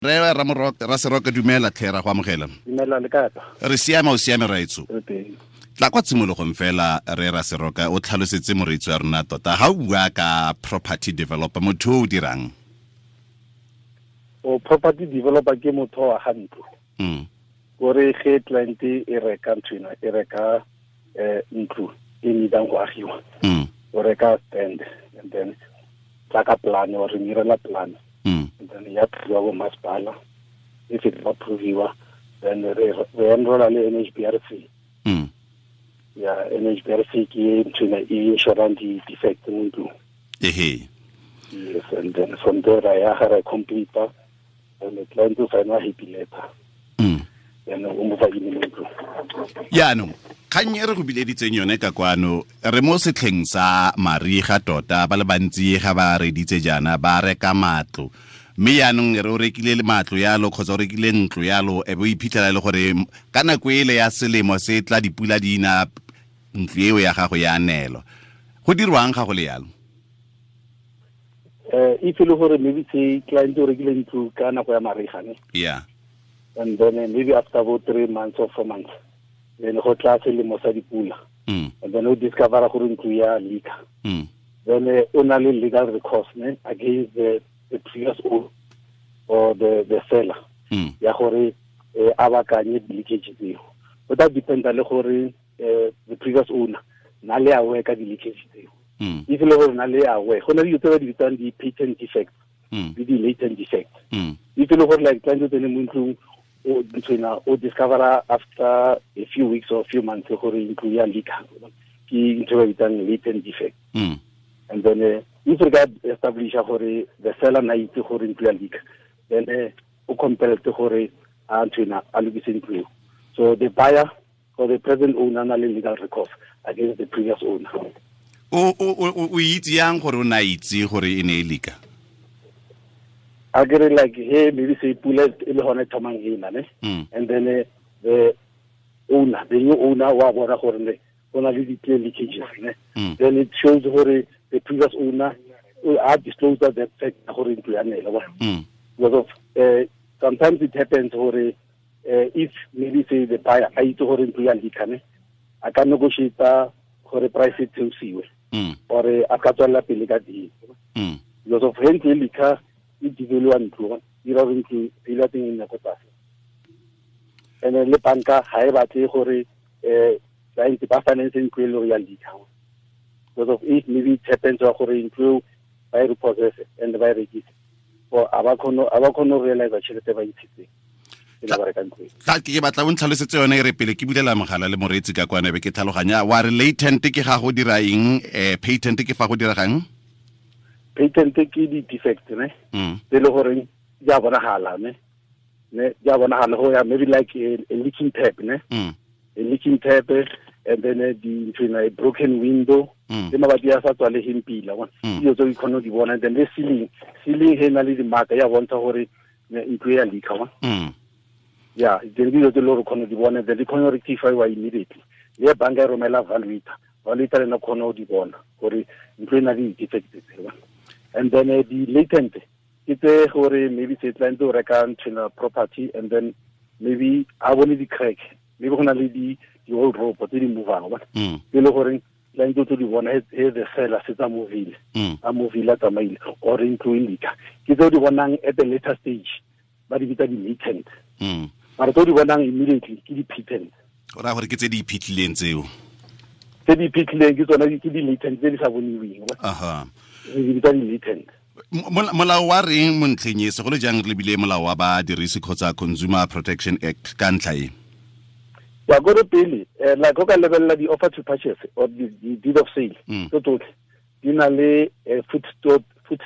Re Raseroka, dumela tlhe, ra go amogela. Dumela, le kae? Re siame, o siame raetso? Re teng. Tla kwa tshimologong fela, re Raseroka, o tlhalosetse moreetsi wa rona tota ga o bua ka property developer, motho o dirang? O property developer ke motho wa ga ntlo. Kore ge client e reka ntho ena, e reka ntlo e needang go agiwa. O reka stand and then tla ka plan, o re mirela plan. And then ya approviwa bo masepala. If it approviwa, then re enrolla le NHBRC. Ya NHBRC ke ntho ena e insurang di-defect mo ntlong. Ehe. Yes, and then from there ra ya ga ra complete, and the client o sign a happy letter. Then o mo fa in mo ntlong. Yaanong kgang e re go bileditseng yone ka kwano, re mo setlheng sa mariga tota, ba le bantsi ga ba reditse jaana ba reka matlo, mme yaanong re o rekile matlo yalo kgotsa o rekile ntlo yalo, e be o iphitlhela e le gore ka nako ele ya selemo se tla dipula di na, ntlo eo ya gago ya neelwa. Go dirwang ga go le yalo? If e le gore maybe se client o rekile ntlo ka nako ya mariga, ne? Yeah. And then maybe after about 3 months or 4 months, then go tla selemo sa dipula. And then o discover gore ntlo ya leaka. Then o na le legal recourse, ne, against the previous owner or the seller. Ya gore a bakanye leakage tseo. Go tla dependa le gore the previous owner na le aware ka di-leakage tseo. If le gore na le aware, go na le dilo tse ba di bitsang di-patent defects le di-latent defects. If le gore like client o tsene mo ntlong, o nthwena o discover after a few weeks or a few months gore ntlo ya leaka, ke ntho ba bitsang latent defect. And then if re ka establish gore the seller na itse gore ntlo ya leaka, then o compelled gore a nthwena a lokise ntlo eo. So the buyer or the present owner na le legal recourse against the previous owner. O itse yang gore o na itse gore e ne e leaka? A kere like he maybe say pula e le hona e thomang ena, ne? And then the owner, the new owner wa bona gore ne go na le di-clear leakages, ne? Then it shows gore the previous owner a disclosed that fact gore ntlo ya nela, wa. Because of sometimes it happens gore if maybe say the buyer a itse gore ntlo ya leaka, ne, a ka negotiate gore price e theosiwe, or a ka tswella pele ka deal. Because of he ntlo e leaka, e devalua ntlo, e dira gore ntlo e ile teng e nne ko tlase. And then le banka ga e batle gore client ba finance ntlo e le gore ya leaka. Because of if maybe it happens wa gore ntlo eo ba e repossess and ba e rekise, or a ba kgone go realize tšhelete ba ntshitseng e le ba reka ntlo eo. Tla ke batla o ntlhalosetse yone e re pele ke bulela mogala le moreetsi ka kwana be ke tlhaloganya. Wa re latent ke ga go dira eng, patent ke fa go diregang? Patent ke di-defect, ne? Tse e le goreng di a bonagala, ne? Ne, di a bonagala go ya maybe like a leaking tap, ne? A leaking tap, and then di ntho ena, a broken window, le mabati a sa tswalegeng pila, wa. Dilo tse o kgone go di bona. And then le ceiling, ceiling he na le di-mark ya bontsha gore ntlo e ya leaka, wa. Yeah, then dilo tse le gore o kgone go di bona, then di kgone go rectify immediately. Le banka e romela valuator, valuator le ena o kgone go di bona gore ntlo e na le di-defect tse, wa. And then the latent ke tse gore maybe se client o reka ntho ena property, and then maybe a bone di-crack, maybe go na le di old rope tse di movang, wa. E le gore client o tlo di bona he the seller se tsa movile, a movile a tsamaile, or ntlo e leaka. Ke tse o di bonang at the later stage, ba di bitsa di-latent. Mara tse o di bonang immediately ke di-patent. O raya gore ke tse di iphitlhileng tseo? Tse di iphitlhileng ke tsona ke di-latent tse di sa boniweng. Re di bitsa di-latent. Molao wa reng mo ntlheng e, segolo jang re lebile molao wa badirisi kgotsa Consumer Protection Act ka ntlha e? Ya gore pele, like o ka lebelela di-offer to purchase or the deed of sale, tse tsotlhe di na le foot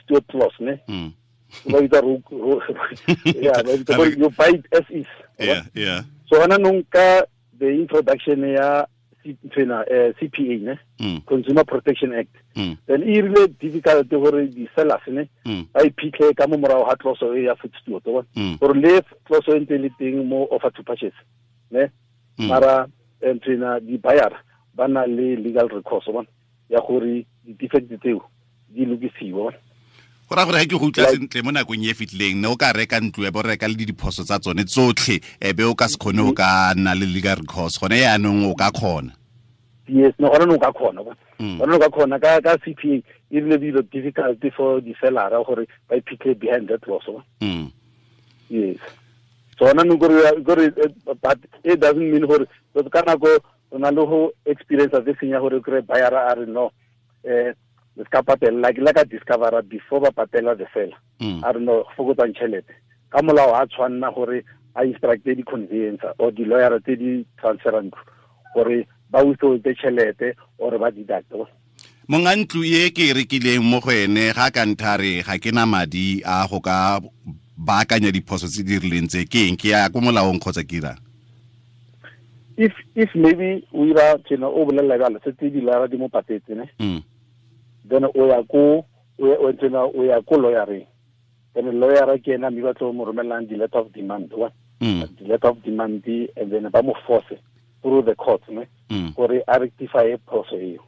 steward clause, ne? Ba bitsa yeah, ba bitsa gore you buy it as is. Yeah, yeah. So hona nong ka the introduction ya nthwena, CPA, ne? Consumer Protection Act. Then e rile difficult gore di-sellers, ne? Ba iphitlhe ka mo morago ga clause e ya foot steward, wa bona? Gore le clause e ntse e le teng mo offer to purchase, ne? Mara nthwena di-buyer ba na le legal recourse, wa bona? Ya gore di-defect tseo di lokisiwe, wa bona? Go ra gore ga ke go utlwa sentle mo nakong e fitlileng ne o ka reka ntlo e bo reka le diphoso tsa tsone tsotlhe e be o ka se kgone o ka nna le legal recourse gone yaanong o ka kgona. Yes, no gone o ka kgona. Gone o ka kgona ka CPA e rile dilo difficult for di seller gore ba iphitlhe behind that clause. Yes. So ona no gore but it doesn't mean gore ka nako o na le go experience this thing ya gore kry buyer a re no le ska patela like la ka discover before ba patela the seller. A re no fokotsang tšhelete ka molao a tshwanna gore a instructe di conveyancer or di lawyer tse di transfer ntlo gore ba withhold tšhelete or ba deduct. Monga ntlo e ke e rekileng mo go ene ga ka nthare ga ke na madi a go ka baakanya diphoso tse di rileng tse ke eng ke ya ko molaong kgotsa ke irang? If maybe o ira tjena o bolela jalo setse di lawyer di mo patetse ne, then o ya ko o ya ko lawyereng, then lawyer ke ena mme ba tlo mo romelang di letter of demand wa the letter of demand and then ba mo force through the court ne gore a rectify phoso eo.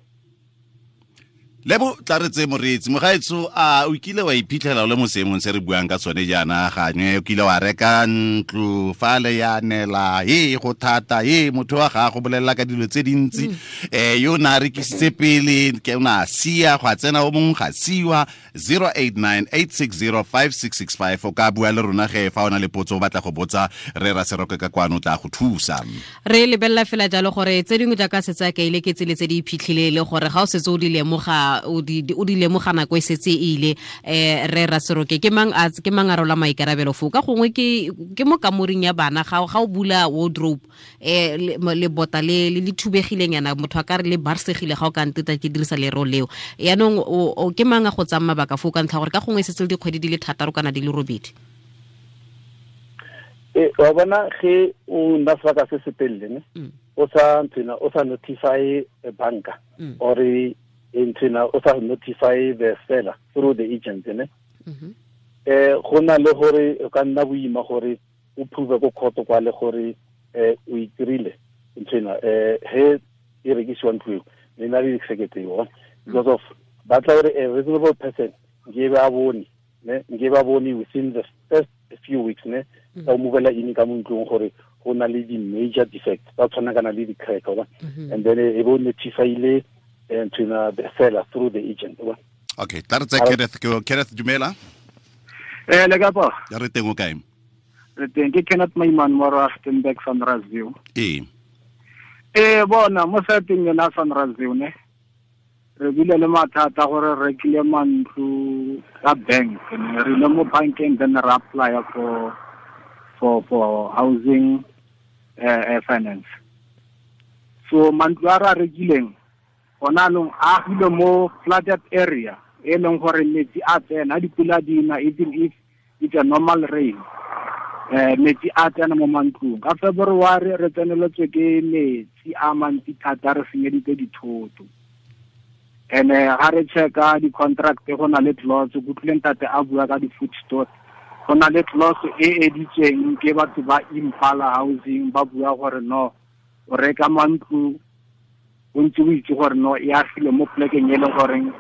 Lebo tla re tse moreetsi mogaetso a o kile wa iphitlhela o le mo seemong se re buang ka tsone jaana gangwe o kile wa reka ntlo fale ya nela e go thata e motho wa gago bolelela ka dilo tse dintsi yo na rekisitse pele ke o na sia go a tsena o mongwe ga siwa 0898605665 o ka bua le rona ge fa o na le potso o batla go botsa re ra Seroke ka kwano tla go thusa. Re lebelela fela jalo gore tse dingwe jaaka setse a kaile ke tsele tse di iphitlhile le gore ga o setse o di lemoga o di lemoga nako e setse e ile re ra Seroke ke mang a rola maikarabelo fo ka gongwe ke mo kamoring ya bana ga o bula wardrobe le bota le le thubegileng yana motho a ka re le barsegile ga o ka nteta ke dirisa lero leo yaanong o ke mang a go tsaya mabaka fo ka ntlha gore ka gongwe e setse le dikgwedi di le 6 kana di le 8. Wa bona ge o nna sebaka se se telele ne o sa ntsena o sa notify banka or ntsena o sa notify the seller through the agent ne go na le gore o ka nna boima gore o prove ko court kwa le gore o itirile ntsena he e rekisiwa ntlo eo ne na le executive because of ba tla gore a reasonable person nke ba bone ne nke ba bone within the first few weeks ne tsa o movela in ka mo ntlong gore go na le di major defects tsa tshwana kana le di crack wa and then e bo notifyile to the seller through the agent wa. Okay, tla re tsa Kenneth Kenneth dumela. Le ka pa? Ya re teng o kae? Re teng ke Kenneth Maiman mo Rustenburg Sunrise View. Bona mo seteng yona Sunrise View ne re bile le mathata gore re rekile mantlo ka bank ne re ile mo bankeng then re apply for housing finance. So mantlo a re rekileng ona long a agile mo flooded area e leng gore metsi a tsena dipula di na even if it's a normal rain metsi a tsena mo mantlong. Ka February re tseneletswe ke metsi a mantsi thata re senyeditse dithoto. And ga re checka di-contract go na le clause go tlileng tate a bua ka di-food store go na le clause e editsweng ke batho ba Impala Housing ba bua gore no o reka mantlo o ntse o itse gore no e agile mo plekeng e leng goreng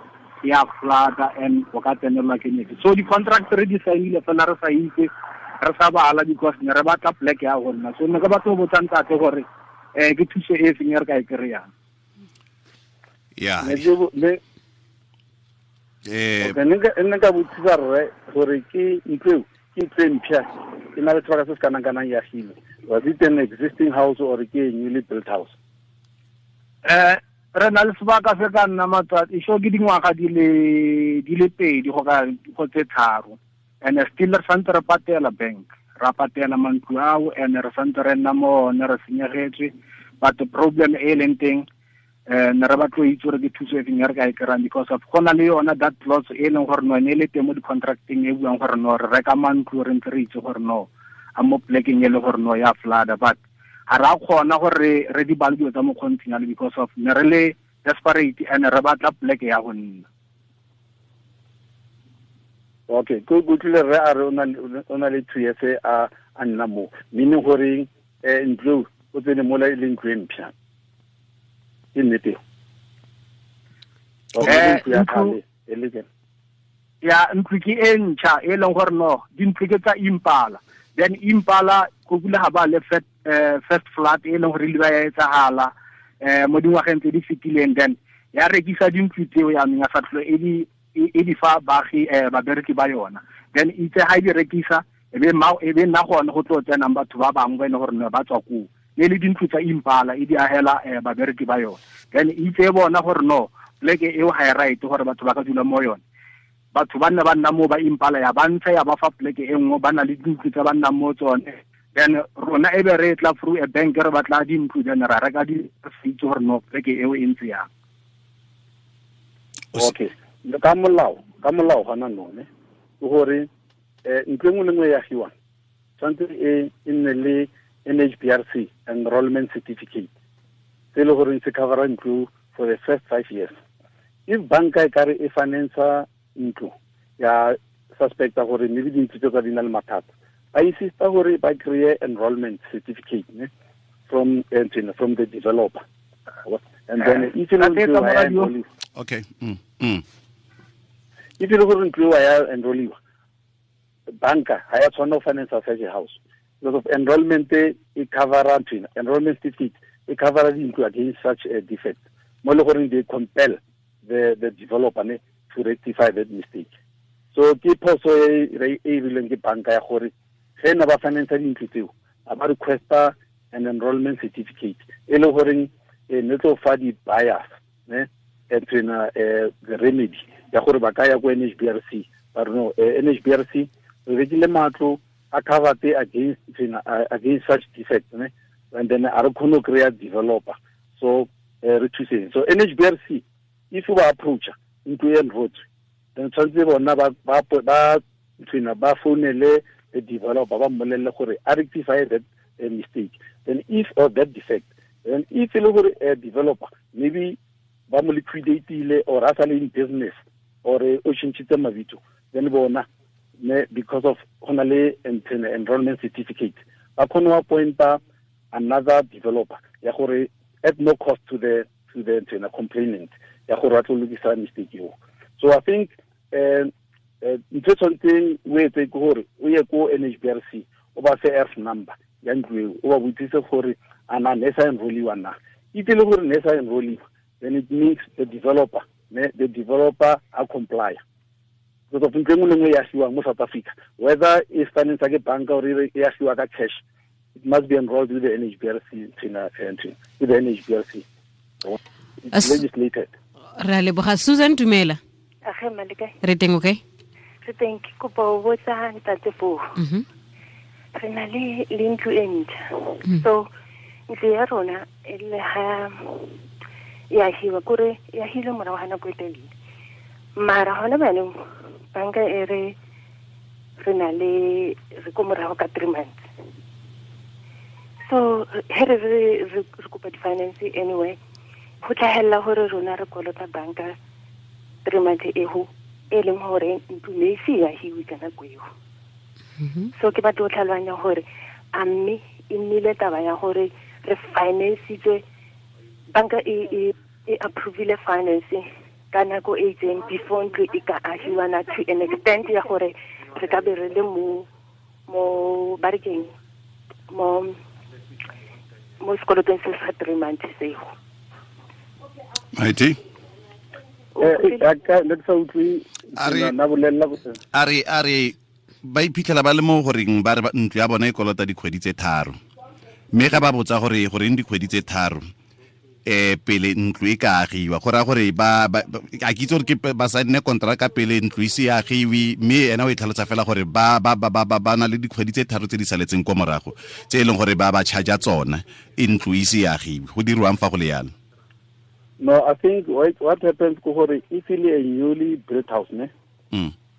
ya flood and o ka tsenelwa ke metsi. So di-contract re di signile fela re sa itse re sa bala because ne re batla pleke ya go nna. So ne ke batla go botsa ntate gore ke thuso e feng e re ka e kry-ang. Yeah. Ne nka botsisa rre gore ke ntlo ke ntlo e mpšha e na le sebaka se se kanang-kanang ya agile. Was it an existing house or ke a newly built house? Re na le sebaka se ka nna matsatsi so ke dingwaga di le 2 go ka go tse 3 and still re santse re patela bank ra patela mantlo ao and re santse re nna mo one re senyegetswe but the problem e leng teng ne re batlo itse gore ke thuso e feng e re ka e kry-ang because of go na le yona that clause e leng gore no ne e le teng mo di-contracting e buang gore no re reka mantlo re ntse re itse gore no a mo plekeng e le gore no ya flooda but ga ra kgona gore re di bale dilo tsa mokgontshinyalo because of ne re le desperate and re batla pleke ya go nna. Okay, go tlile re a re o na le 2 years a nna mo meaning gore ntlo o tsene mola e leng ntlo e mpšha. Ke nnete. Ya ntlo ke e ntšha e leng gore no dintlo ke tsa Impala. Then Impala go kula ha ba le first flat e leng gore le ba ya etsahala mo dingwageng tse di fetileng, then ya rekisa dintlo tseo ya neng ya sa tlhole e di fa baagi babereki ba yona. Then itse ha di rekisa e be nna gone go tlo tsenang batho ba bangwe ba e leng gore ne ba tswa koo, ne le dintlo tsa Impala e di agela babereki ba yona. Then itse bona gore no pleke eo ha e right gore batho ba ka dula mo yone, batho ba nne ba nna mo ba Impala ya ba ntsha ya ba fa pleke e nngwe, ba na le dintlo tsa ba nnang mo tsone. Then rona e be re tla through a bank re batla dintlo, then ra reka di itse gore no pleke eo e ntse yang. Okay, ka molao gona none ke gore ntlo e nngwe le nngwe e agiwang tshwanetse e nne le NHBRC enrollment certificate se e le goreng se covera ntlo for the first 5 years. If banka e kare e financer ntlo ya suspecta gore maybe dintlo tse tsa di na le mathata, ba insista gore ba kry-e enrollment certificate ne from the developer, and then if e okay if e le gore ntlo ya enrolliwa, banka ha ya tshwanela go finance such a house because of enrollment e covera ntlo, enrollment certificate e covera dintlo against such a defect mo le gore they compel the developer ne to rectify that mistake. So ke phoso e e rileng ke banka ya gore ge ne ba finance dintlo tseo a ba requesta an enrollment certificate e le goreng ne tlo fa di buyers ne the remedy ya gore ba ka ya ko NHBRC ba re no NHBRC re rekile matlo a covered against such defect ne, and then a re kgone go kry-a developer, so re thuseng. So NHBRC if ba approacha ntlo e enrotswe, then tshwanetse bona ba founele the developer ba mmolelle gore a rectify that mistake, then if or that defect, then if e le gore developer maybe ba mo liquidatile or a sa le in business or o tšhentšhitse mabitso, then bona ne because of go na le enrollment certificate ba kgone go appointa another developer ya gore at no cost to the complainant ya gore a tlo lokisa mistake eo. So I think ntho e tshwanetseng o etse ke gore o ye ko NHBRC o ba fe F number ya ntlo eo, o ba botsise gore a na ne sa enrolliwa na. Itse le gore ne sa enrolliwa, then it means the developer a comply. Because of ntlo e nngwe le nngwe e agiwang mo South Africa, whether e finance ke banka or e agiwa ka cash, it must be enrolled with the NHBRC with the NHBRC. It's legislated. Ra leboga. Susan, dumela. Age malika. Re teng okay? Re teng ke kopa ho botsa ntate fo. Re na le ntlo e ntjha. So ntlo ya rona e le ha ya hiwa kore ya hile morago ga nako e telele. Mara hona baneng banka e re re na le re ko morago ka 3 months. So he re kopa di-finance anyway, go tlhagelela gore rona re kolota banka 3 months ego e leng gore ntlo ne e se ya hiwe ka nako eo. So ke batla go tlhaloganya gore a mme e nnile taba ya gore re financitswe, banka e approvile finance ka nako e itseng before ntlo e ka agiwa na to an extent ya gore re ka be re le mo ba re keng mo sekolotong se sa 3 months seo. Maiti? A re ba iphitlhela ba le mo goreng ba re ntlo ya bona e kolota dikgwedi tse 3, mme ga ba botsa gore goreng dikgwedi tse 3 pele ntlo e ka agiwa, go raya gore ba a ke itse gore ke ba saene kontraka pele ntlo e se agiwe, mme ena o e tlhalosa fela gore ba na le dikgwedi tse 3 tse di saletseng kwa morago tse e leng gore ba ba charge tsona e ntlo e se agiwe. Go dirwang fa go le yalo? No, I think what happens ko gore if e le a newly built house ne,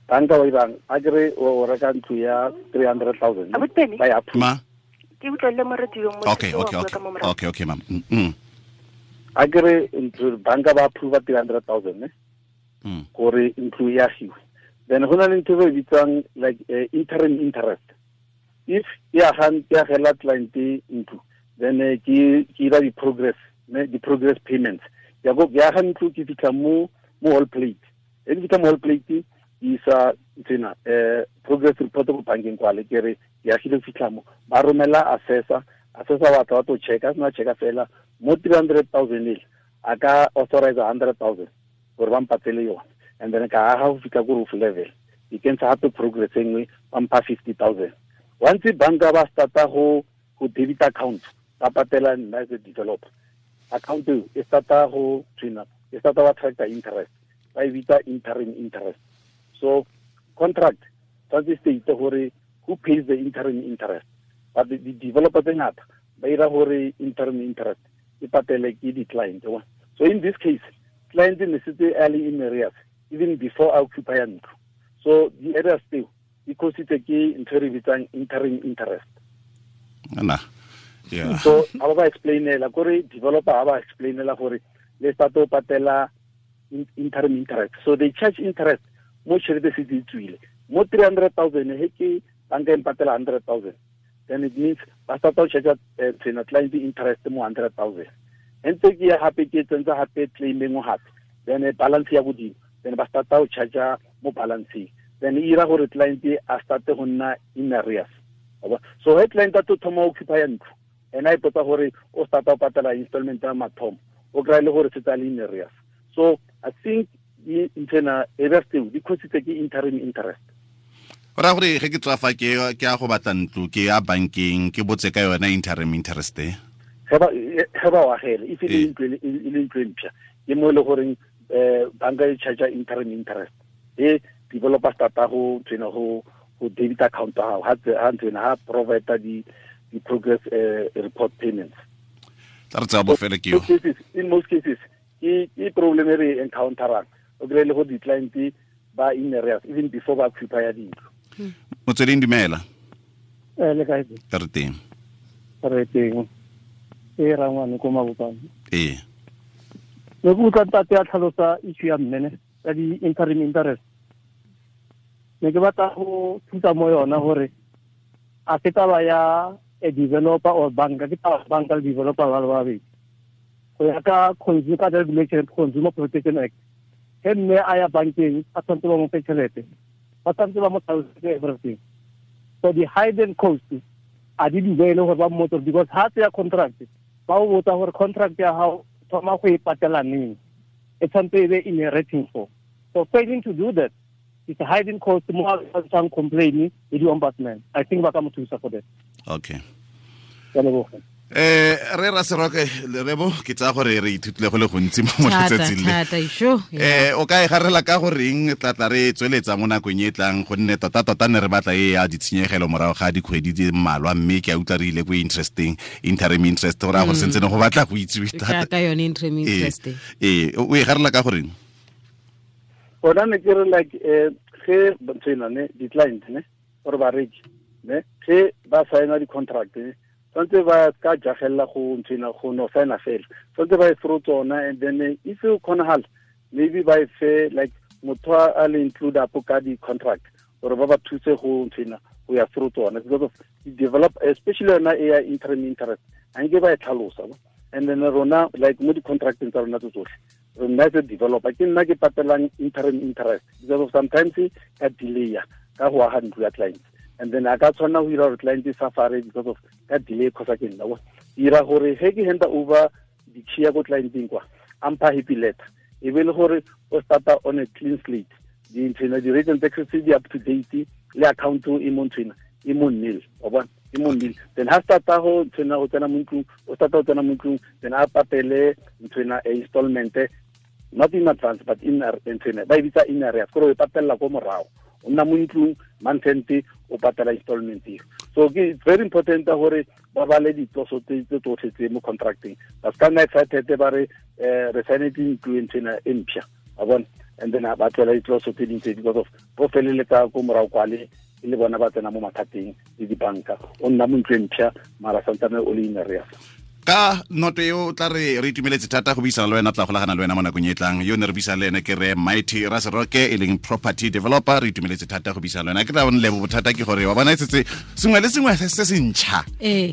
banka wa ibang a kere o reka ntlo ya 300,000 ba ya ma ke utlwele mo radio mo. Okay ma'am. A kere ntlo banka ba approve 300,000 ne gore ntlo ya agiwe, then go na le ntho e bitswang like interim interest. If ya agela client ntlo, then ke ira di progress ne, di progress payments ya go ya ga ntlo ke fitlha mo wall plate, e ke fitlha mo wall plate ke Isa tsena progress report go bankeng kwale ke re ya agile fitlha mo ba romela assessor wa tla to checka sna checka fela mo 300,000 ile a ka authorize 100,000 gore ba mpatele yone and then ka aga go fitlha ko roof level e kentsha gape progress e nngwe ba mpha 50,000. Once banka ba starta go debit account ba patela nna as a developer account e starta go twina e starta ba attracta interest ba e bitsa interim interest. So contract tshwanetse state gore who pays the interim interest, but the developer tse ngata ba ira gore interim interest e patele ke di-client. So in this case client ne setse early in arrears even before I occupy ntlo. So the arrears tseo di cositse ke ntho e re bitsang interim interest. Ana yeah. So ha ba explainela gore developer ha ba explainela gore le start o patela interim interest. So they charge interest mo tšhelete se di tswile mo 300,000 he ke banka e mpatela 100,000, then it means ba start o charge tsena client interest mo 100,000. Ntse ke ya hape ke tsentsa hape claim engwe hape then balance ya godimo then ba start o charge mo balance, then e ira gore client a start go nna in arrears. So he client a to thoma occupy ntlo ena e ipotsa gore o start o patela installment ya mathomo o kry le gore se tsa le in arrears. So I think internal arrears tseo di cositse ke interim interest. Ora gore ge ke tswa fa ke ya go batla ntlo ke ya bankeng ke botse ka yona interim interest e ge ba o agele if e le ntlo e mpšha ke mo e le goreng banka e charge interim interest e developer starta go tsena go debit account ya gago ha ntsena ha provide di progress report payments. Tla re tsaya bofele ke yo. In most cases ke problem e re encounterang o kry le go di-client ba in arrears even before ba occupy dintlo. Motsweding dumela. Le kae? Re teng. Re teng. E rangwane ko Mabopane. Ee. Ne ke utlwa ntate a tlhalosa issue ya mmene ya di-interim interest. Ne ke batla go thusa mo yona gore a se taba ya a developer or banka, ke taba banka le developer ba le babedi. Go ya ka Consumer Regulation Consumer Protection Act, he mme a ya bankeng a tshwanetse ba mo fe tšhelete, ba tshwanetse ba mo tlhalosetse everything. So the hidden cost a di duele gore ba mmotse because ha tseya contract ba o botsa gore contract ya gago thoma go e patela neng, e tshwanetse e be in a rating for. So failing to do that it's a hidden cost mo a tshang complain le di ombudsman. I think ba ka mo thusa for that. Okay. Ke a leboga. Re Raseroke Lerebo ke tsaya gore re ithutile go le gontsi mo letsatsing le. O ka e garela ka goreng tla re tsweletsa mo nakong e tlang gonne tota ne re batla e ya ditshenyegelo morago ga dikgwedi di mmalwa mme ke a utlwa re ile ko interesting interim interest gore a go sentse ne go batla go itsiwe thata ka yone interim interest. O e garela ka goreng? Ona ne ke re like ge ntsena ne di-client ne or bareki ne ge ba signa di-contract ne tshwanetse ba ka jagella go ntsena go no signa fela tshwanetse ba e through tsona and then if you kgonagala maybe ba e fe like motho a le include up ka di-contract gore ba ba thuse go ntsena go ya through tsona because of develop especially yona e ya interim interest a nke ba e tlhalosa. And then rona like mo di-contracteng tsa rona tse tsotlhe rona as a developer ke nna ke patelang interim interest because of sometimes ka delay ka go aga ntlo ya client and then a ka tshwanna go ira gore client e safare because of ka delay kgotsa ke nna ira gore ge ke hand over di-key ya ko clienteng kwa a mpha happy letter e be le gore o starta on a clean slate dinthwena di-rate and taxes di up to date le account e mo nthwena e mo nil wa bona e mo nil. Then ha starta go nthwena go tsena mo ntlong o starta go tsena mo ntlong then a patele nthwena e installment not in advance but in nthwena ba e bitsa in arrears gore o e patella ko morago o nna mo ntlong month end o patela installment eo. So ke very important gore ba bale ditloso tse tsotlhe tse mo contracting ba ska nna excited ba re re signetse ntlo nthwena e mpšha wa bona and then ba tlola ditloso tse dintsi because of bo feleletsa ko morago kwale e le bona ba tsena mo mathateng le dibanka o nna mo ntlo e mpšha mara santsane o le in arrears. Ka noto eo tla re itumeletse thata go buisana le wena, tla golagana le wena mo nakong e tlang. Yo ne re buisana le ene ke re Mighty Raseroke e leng property developer. Re itumeletse thata go buisana le wena. Ke tla bone lebo bothata ke gore wa bona e setse sengwe le sengwe se se ntšha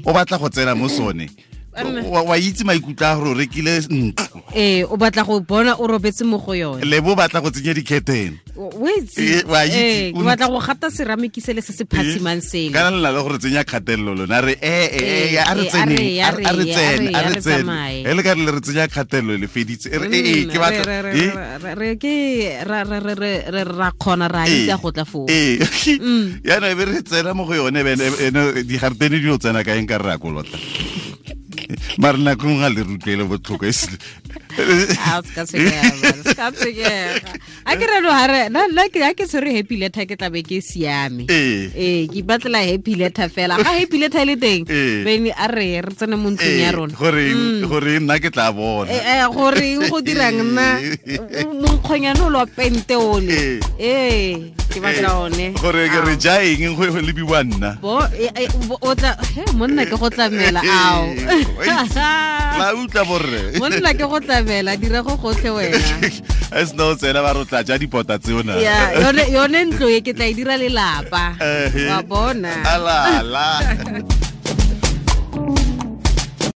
o batla go tsena mo sone. Wa itse maikutlo a gore o rekile ntlo. Ee, o batla go bona o robetse mo go yone. Le bo batla go tsenya dikhethene. O itse. Wa itse. O batla go gata ceramic sele se se phatsimang sele. Kana le la gore tsenya kgatelelo lona re a re tsene a re tsene a re tsene. E le ka le re tsenya kgatelelo le feditse. E ke batla re ke ra ra ra ra ra khona ra itse go tla foo. Ee. Yana e be re tsena mo go yone bene di gartene di o tsena ka eng ka re a kolota. Mara nako nngwe ga le rutlwele botlhoko e se. A se ka tshwenyega, a ke re no hare nna ke tshwere happy letter ke tlabe ke siame. Ee, ke ipatlela happy letter fela. Ga happy letter e le teng, bene a re re tsene mo ntlong ya rona. Gore nna ke tla bona. Gore go dirang nna monkgonyane o lwa pente ole. Ee, ke batla one. Gore ke re ja eng go lebiwa nna. Bo o tla he monna ke go tlamela ao. La utlwa borre. Monna ke go tlamela dira go gotlhe wena. A sena o tsena ba re o tla ja dipota tseo na. Ya, yone ntlo e ke tla e dira lelapa. Wa bona. Ala la.